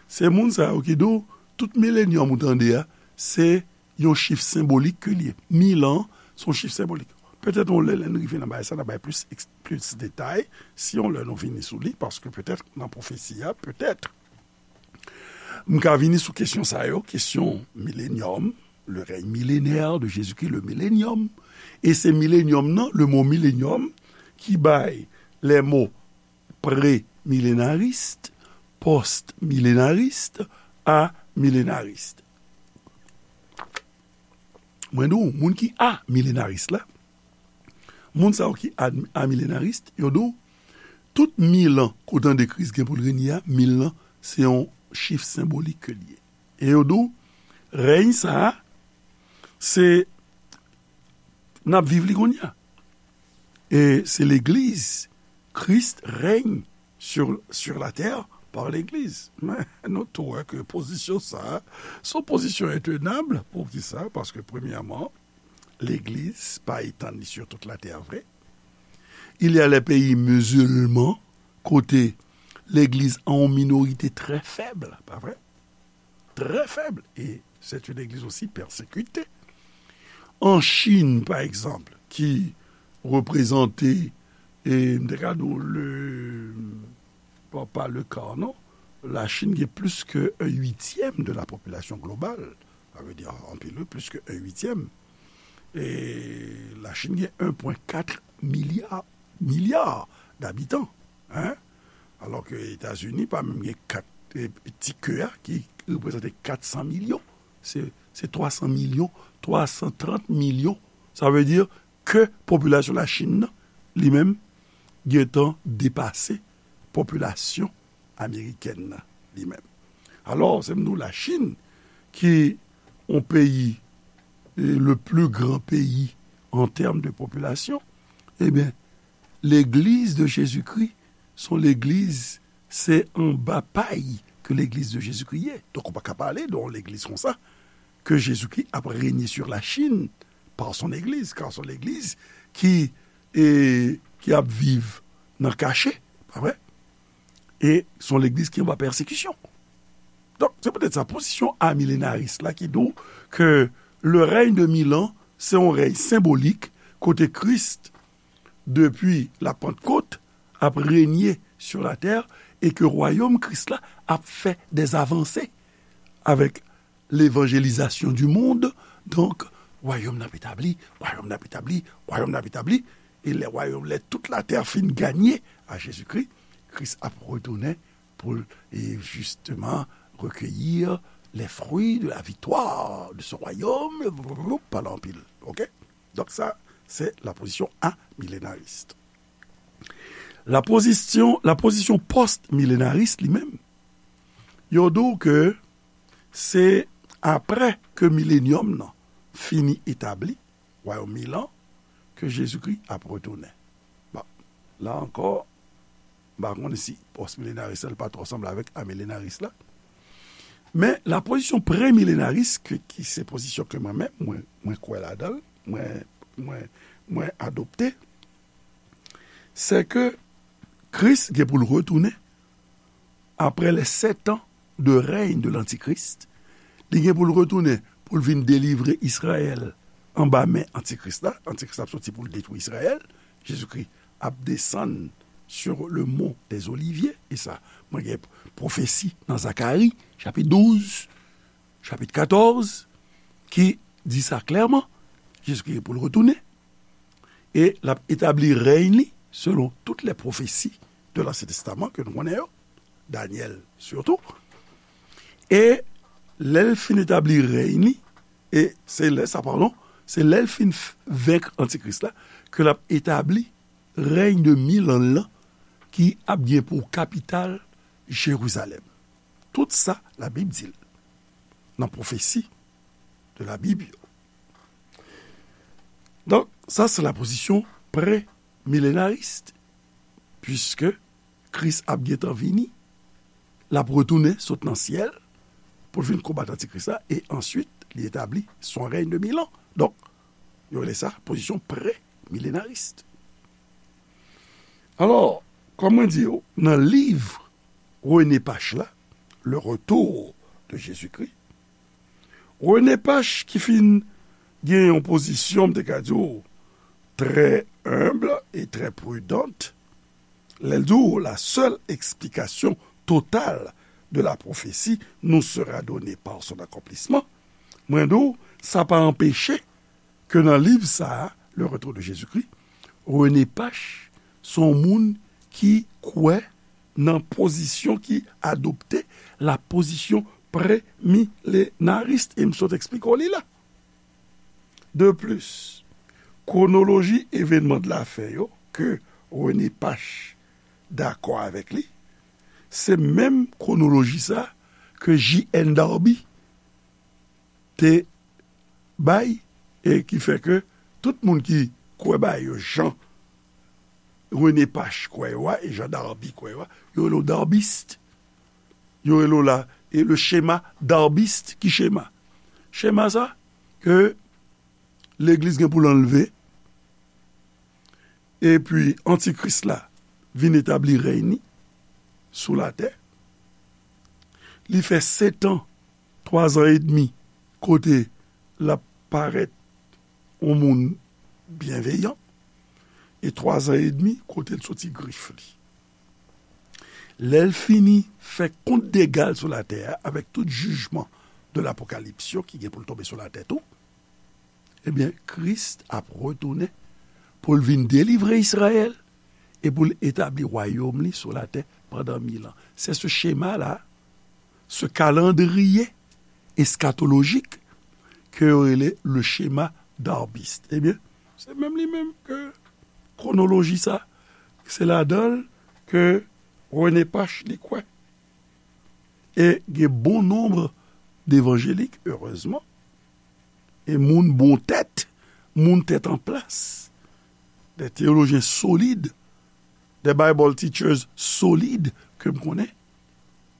se moun sa yo ki di w tout milenyòm ou tande a, se yon chif senbolik ke l ye. Mil an, se yon chif senbolik. Petèt yon lè, lè n rive nan bagay sa, n a bay plis eks-, plis detay. Si yon lè nou vini sou li, paske petèt nan pwofesi a, petèt, m ka vini sou kesyon sa yo, kesyon milenyòm, le règne millénaire de Jésus-Christ, le millénium. E se millénium nan, le mo millénium, ki bay les mots prémillénariste, postmillénariste, amillénariste. Mwen di w, moun ki amillénariste la, moun sa yo ki a- amillénariste, yo di w, tout mil an, kote an de Kris gen pou l renye a, mil lan, se yon chif senbolik ke l ye. E yo di w, rèy sa a, se, n ap viv li kounye a. E se legliz, Christ règne sur, sur la terre par l'église. Men nou tou wè ke pozisyon sa a, se yon pozisyon entenab. Poukisa? Paske premyèman, legliz pa etann li sur toute la terre vre. Il y a les pays musulmans, kote legliz an yon minorite trè fèb, pa vre? Trè fèb. E c'est une église aussi persécutée. An Chin, pa egzanp, ki reprezante, e, m te ka di w, le, pa, pa le quart, non. La Chine gen plis ke un huitième de la population globale. Sa vle di, anpil, wi, plis ke un huitième. E la Chine gen un point quatre milliard, milliard d'abitan, hein? Alò ke Etazini pa menm gen kat, e, ti ke a ki reprezante kat san milyon. Se, se twa san milyon, twa san trant milyon. Sa vle di ke popilasyon Lachin nan, li menm, gentan depase popilasyon amerikèn nan, li menm. Alò, se m di w Lachin, ki yon peyi, e, le plus grand pays en termes de population, ebyen, Legliz de Jezikri, se yon legliz, se anba pay ke Legliz de Jezikri ye. Donk, ou pa ka pale de yon legliz konsa, ke Jezikri ap renye sur la Chine par son église, car se yon legliz ki, e, ki ap viv nan kache, pa vre? E se yon legliz ki anba pèsekisyon. Donk, se poutèt sa, pozisyon amilenaris la ki di w ke le règne de mil ans, se yon rèy senbolik, kote Kris, depi la Pantkot, ap renye sur la terre, e ke wayòm Kris la ap fè des avancées avec l'évangélisation du monde. Donk, wayòm nan ap etabli, wayòm nan ap etabli, wayòm nan ap etabli, e lè wayòm, lè tout latè fin ganye a Jezikri, Kris ap retounen pou l, e, justement, recueillir les fruits de la victoire de ce royaume, pale anpil, ok? Donk sa, se la pozisyon amilenaris. La pozisyon, la pozisyon post-milenaris li menm, yo di w ke se apre ke milenyòm nan fini etabli, wayòm mil an, ke Jezikri ap retounen. Bon, la ankò, m pa konnen si post-milenaris la pa twò sanble avèk amilenaris la. Men la pozisyon premilenaris, ke, ki se pozisyon ke mwen menm, mwen, mwen kwè ladan l, mwen, mwen, mwen adopte, se ke Kris gen pou l retounen apre les sept ans de règne de l'Antichrist. Li gen pou l retounen pou l vin delivre Izrayèl anba men Antikris la. Antikris la ap soti pou l detwi Izrayèl. Jezikri ap desann sur le mont des Oliviers. E sa, mwen gen pwofesi nan Zakari, chapit douz, chapit katòz, ki di sa klèman. Jezikri gen pou l retounen. E l ap etabli rèy li selon tout les prophéties de l'Ancien Testament ke nou konnen yo, Danyèl sitou. E lè l fin etabli rèy li, e se lè sa, padon, se lè l fin f- venk Antikris la, ke l ap etabli rèy de mil an lan ki ap gen pou kapital Jerizalèm. Tout sa, Labib di l nan pwofesi de Labib yo. Donk, sa se la pozisyon premilenaris, puiske Kris ap gentan vini, l ap retounen sot nan syèl pou l vin konbat Antikris la, e answit, li etabli son rèy de mil an. Donk, yo rele sa pozisyon premilenaris. Alò, kòm mwen di yo, nan liv René Pache la, Le Retour de Jésus-Christ, René Pache ki fin gen yon pozisyon, m te ka di w, très humble et très prudente, lè l di w, la seule explication totale de la prophétie nous sera donnée par son accomplissement, Mwen di w, sa pa anpeche ke nan liv sa a, Le Retour de Jésus-Christ, René Pache se yon moun ki kwè nan pozisyon ki adopte la pozisyon premilenaris, e m sot eksplike w li la. De plis, kwonoloji evènman de la fen yo ke René Pache dakò avèk li, se menm kwonoloji sa ke J N Darby te bay, e ki fè ke tout moun ki kwè bagay yo jan René Pache kwè yo a, e jan Darby kwè yo a, yo rele w darbist. Yo rele w la, e le schéma darbiste. Ki chema? Chema sa, ke legliz gen pou l anlve, epi antikris la vin etabli rèy ni sou latè. Li fè setan, twazan edmi, kote l ap parèt yon moun byenveyan, e twazan edmi kote l soti grif li. Lè l fini fè kont dega l sou latè a, avèk tout jijman de lapokalips yo ki gen pou l tonbe sou latè tou, ebyen, Kris ap retounen pou l vin delivre Izrayèl e pou l etabli wayòm li sou latè pandan mil an. Se se chema la, se kalandriye eskatolojik ke yo rele le schéma darbiste. Ebyen, se menm li menm ke kwonoloji sa, se ladan l ke René Pache li kwè. E gen bon nonb devanjelik, erezman, e moun bon tèt, moun tèt an plas, de teyolojyen solid, de Bible teachers solid ke m konnen,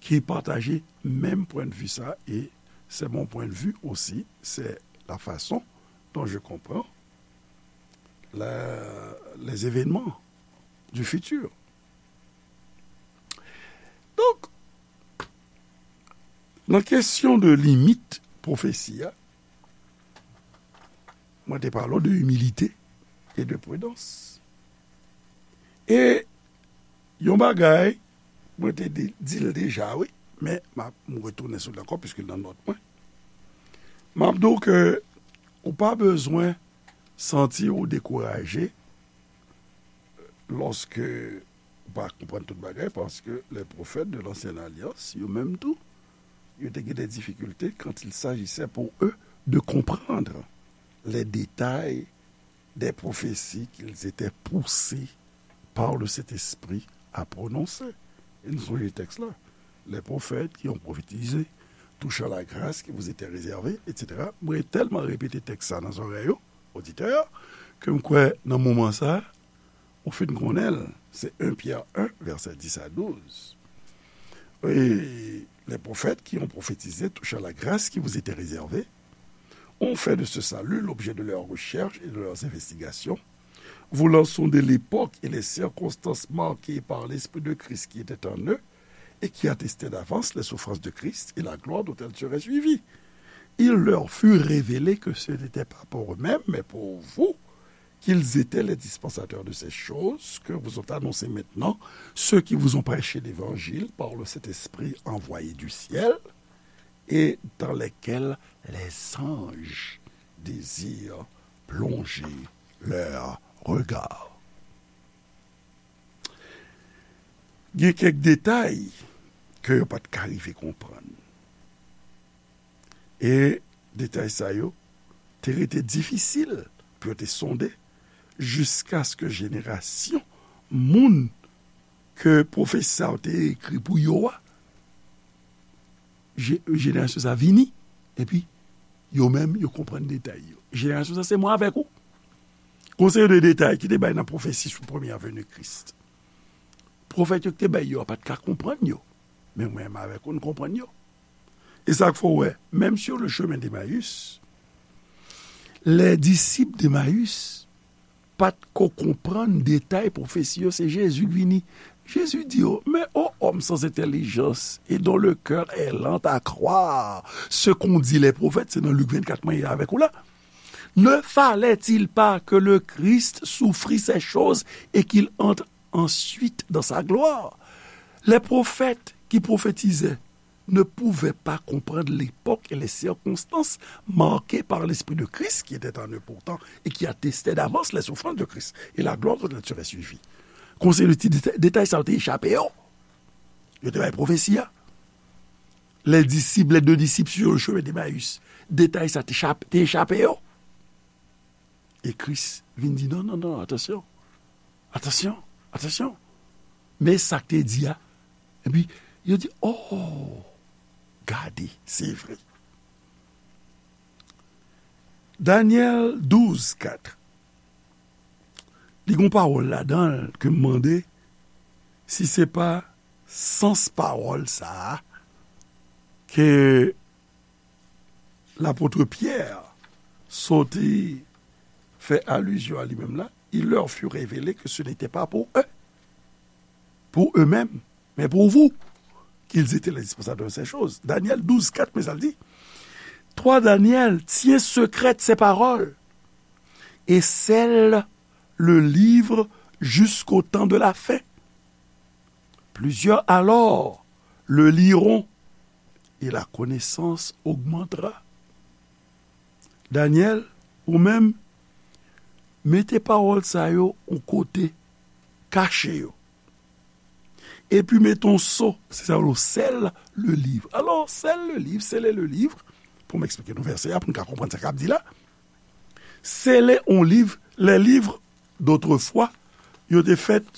ki pataje menm pwennvi sa, e c'est mon point de vue aussi, c'est la façon dont je comprends la, les événements du futur. Donk, nan kesyon de limit pwofesi a, mwen te pale w de imilite e de pridans. E yon bagay, mwen te di, di l deja, wi, men m ap, m retounen sou l ankò, piske l nan nòt mwen. M ap di w ke ou pa bezwen santi w dekouraje lòske ou pa konprann tout bagay, paske les prophètes de l'ancienne alliance, yo menm tou, yo te gen des difficultés quand il s'agissait pour eux de comprendre les détails des prophéties qu'ils étaient poussés par le Saint-Esprit à prononcer. E nou sonje tèks la. Les prophètes qui ont prophétisé touchant la grâce qui vous était réservée, et cetera. Mwen tèlman repete tèks sa nan zòrèy yo, oditè, ke m kwè nan moman sa, ou fin konnen l, se un Pyè en, vèsè dis a douz. Et les prophètes qui ont prophétisé touchant la grâce qui vous était réservée ont fait de ce salut l'objet de leurs recherches et de leurs investigations, voulant sonder l'époque et les circonstances marquées par l'Esprit de Christ qui était en eux et qui attestaient d'avance les souffrances de Christ et la gloire dont elles seraient suivies. Il leur fut révélé que ce n'était pas pour eux-mêmes, mais pour vous, qu'ils étaient les dispensateurs de ces choses que vous ont annoncées maintenant ceux qui vous ont prêché l'évangile par le Saint-Esprit envoyé du ciel, et dans lesquels les anges désirent plonger leurs regards. Gen kèk detay ke yo pa t ka rive konprann. E detay sa yo te rete difisil pou yo te sonde jiskaske jenerasyon moun ke pwofesi sa yo te ekri pou yo a, je-, jenerasyon sa vini, epi yo menm, yo konprann detay yo. Jenerasyon sa, se mwen avèk ou. Gon seri de detay ki te bay nan pwofesi sou premyè veni Kris. Pwofèt yo ki te bay yo a pa t ka konprann yo. Men mwen menm avèk ou, n konprann yo. E sa k fè w wè, menm sur le chemin d'Emmaüs, les disciples d'Emmaüs pa t ko konprann detay pwofesi yo, se Jezi k vini. Jezi di yo, mais ô homme sans intelligence et dont le cœur est lent à croire ce qu'ont dit les prophètes, se nan Lik vennkat mwen ye avèk ou la. Ne fallait-il pas que le Christ souffrit ces choses et qu'il entre ensuite dans sa gloire? Les prophètes ki pwofetize ne pouvaient pas comprendre l'époque et les circonstances marquées par l'Esprit de Christ qui était en eux pourtant et qui attestait d'avance les souffrances de Christ et la gloire dont il serait suivi. Konsa, detay sa yo te echape yo. Yo te bay pwofesi a. Les disciples, les deux disciples sur le chemin d'Emmaüs. Detay sa te echape yo. E Kris vin di, non, non, non, atansyon. Atansyon, atansyon. Men sa k te di a. Epi, yo di, oh, gade, se vre. Danyèl douz kat. Li gon pawòl ladan l ke m mande si se pa sans pawòl sa a ke lapot Pyè soti fè alizyon a li menm la, il leur fut révélé que ce n'était pas pour eux, pour eux-mêmes, mais pour vous, qu'ils étaient les dispensateurs de ces choses. Danyèl douz kat, men sa l di, Toi, Daniel, tiens secrètes ces paroles et scelle le livre jusqu'au temps de la fin. Plusieurs alors le liront et la connaissance augmentera. Danyèl, ou menm, mete pawòl sa yo yon kote, kache yo. Epi mete yon so, se sa yo rele sèl le liv. Alò, sèl le liv, sele le liv, pou m eksplike nou vèsè a, pou n ka konprann sa k ap di la. Sele yon liv, les livres d'autrefois, yo te fèt,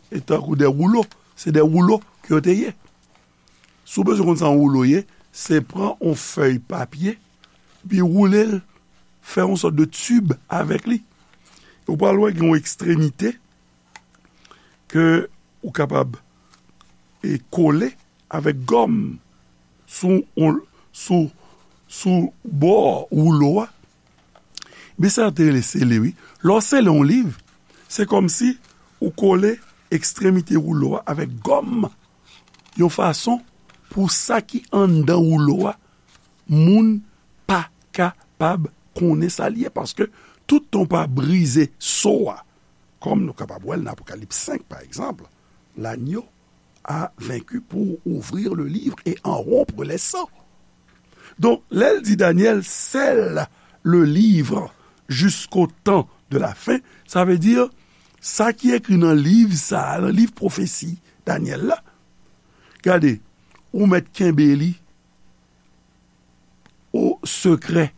e tankou de woulo, se de woulo ke yo te ye. Si w bezwen konn sa yon woulo ye, se pran yon fèy papye, epi woule l, fè yon sòt de tib avèk li. Ou pral wè gen yon ekstremite ke ou kapab, e, kole avèk gòm sou, sou, sou bò woulo a. Men sa yo te rele sele, wi. Lè w sele yon liv, se kòmsi ou kole ekstremite woulo a avèk gòm, yon fason pou sa ki anndan woulo a, moun pa kapab konnen sa l ye, paske toutan w pa brize so a, kòm nou kapab wè l nan Apokalips senk, pa egzanp, l'agneau a vaincu pour ouvrir le livre et en rompre les sceaux. Donk, lè l di Danyèl, scelle le livre jusqu'au temps de la fin, sa vle di, sa ki ekri nan liv sa a, nan liv pwofesi Danyèl la, gade, ou mèt kenbe li o sekrè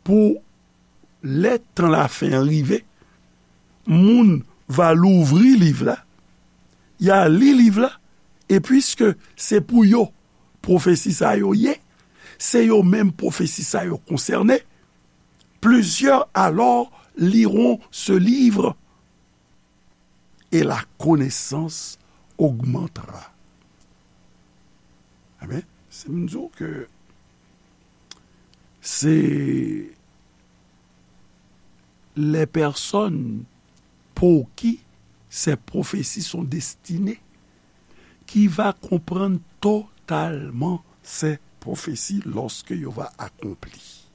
pou lè tan lafen an rive, moun va louvri liv la, y a li liv la, e piske se pou yo pwofesi sa yo ye, se yo menm pwofesi sa yo konsène, plusieurs alors liront ce livre et la connaissance augmentera. Amen. Si m di w ke se les personnes pour qui ces prophéties sont destinées qui va comprendre totalement ces prophéties lorsque yo va accompli.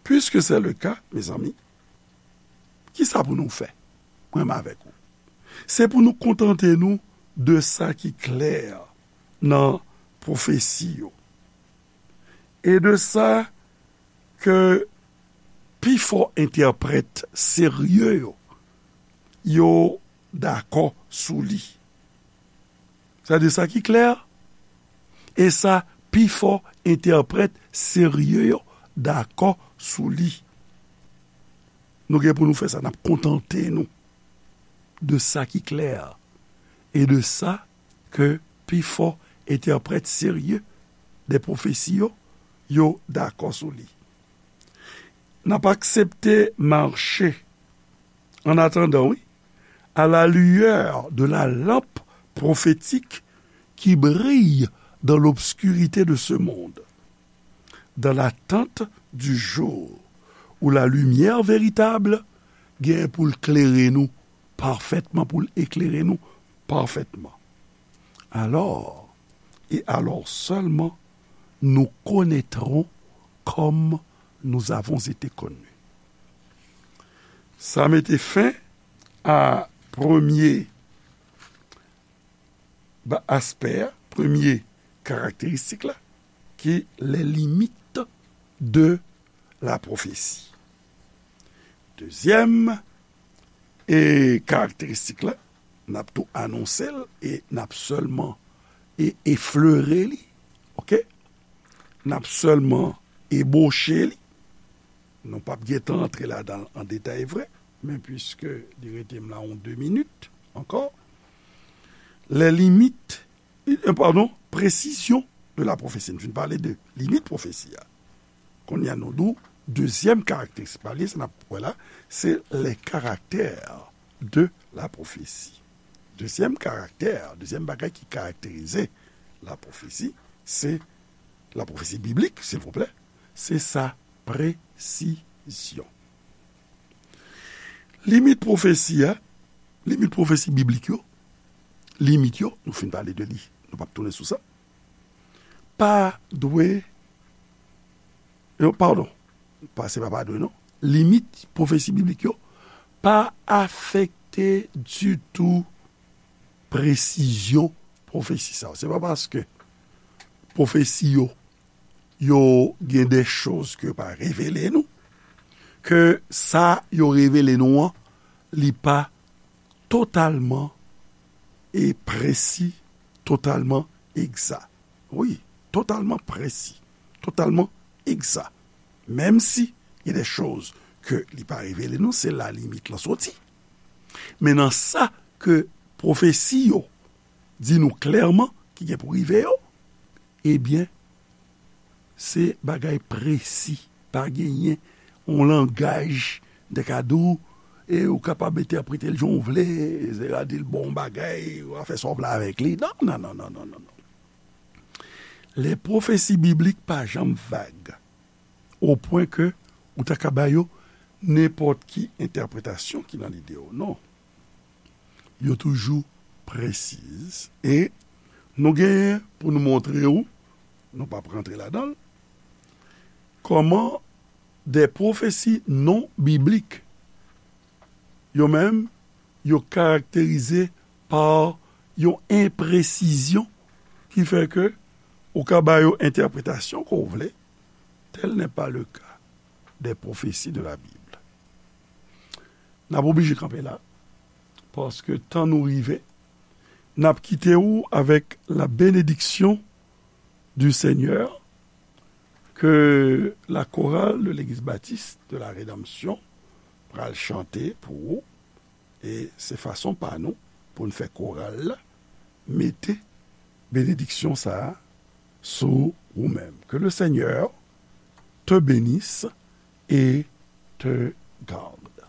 Puisque c'est le cas, mes amis, kisa pou nou fè, mwen menm avèk ou? Se pou nou kontante nou de sa ki klè nan pwofesi yo e de sa ke pifò entèprèt serye yo, yo dakò sou li. Sa de sa ki klè, e sa pifò entèprèt serye yo dakò sou li. Nou gen pou nou fè sa, n ap kontante nou de sa ki klè e de sa ke pifò entèprèt serye de pwofesi yo, yo dakò sou li. N ap aksepte mache, en attendant, wi, à la lueur de la lampe prophétique qui brille dans l'obscurité de ce monde, dans l'attente du jour où la lumière véritable gen pou l klere nou pafètman, pou l eklere nou pafètman. Alors, et alors seulement, nous connaîtrons comme nous avons été connus. Sa mete fen a premye ba-, aspè a, premye karakteristik la, ki les limites de la prophétie. Dezyèm e karakteristik la, n ap tou anonse l e n ap sèlman e eflere li, oke? N ap sèlman eboche li. Nou p ap gentan antre ladan l an detay vre, men piske li rete m la yon de minit ankò. Les limites, euh, pardon, précision de la prophétie. Nou fin pale de limit pwofesi a. Kounye a nou di w, dezyèm karakteristik pa li, sa n ap wè la, se les caractères de la prophétie. Dezyèm karaktè, dezyèm bagay ki karakterize la pwofesi, se la pwofesi biblik, silvouplè, se sa presizyon. Limit pwofesi a, limit pwofesi biblik yo, limit yo, nou fin pale de li, nou p ap tounen sou sa, pa dwe, non, padon, pa, se pa pa dwe, non. Limit pwofesi biblik yo pa afekte ditou presizyon pwofesi sa yo. Se pa paske pwofesi yo, yo gen de choz ke yo pa revele nou, ke sa yo revele nou an, li pa totalman e presi, totalman egza. Wi, totalman presi, totalman egza. Menm si gen de choz ke li pa revele nou, se la limit lan soti. Men nan sa ke pwofesi yo di nou klèman ki gen pou rive yo, ebyen, se bagay presi. Pa genyen yon langaj de ka di w, e ou kapab entèprete l jan w vle, se ka di l bon bagay, ou a fè sa w vle avèk li. Non, non, non, non, non, non, non. Les prophéties bibliques pa janm vag, o pwen ke ou ta ka ba yo nenpòt ki entèpretasyon ki nan lide w. Non. Yo toujou presiz. E nou genyen pou nou montre w, nou p ap rantre ladan l, kòman de pwofesi non biblik, yo menm, yo karakterize pa yon enpresizyon ki fè ke ou ka ba yo entèpretasyon ke w vle. Tel n'est pas le cas des prophéties de la Bible. N ap oblije kanpe la, paske tan nou rive. N ap kite w avèk la bénédiction du Seigneur, ke la chorale de l'Église Baptiste de la Rédemption pral chante pou ou. E se fason pa nou pou n fè koral la mete benediksyon sa a sou ou menm. Que le Seigneur te bénisse et te garde.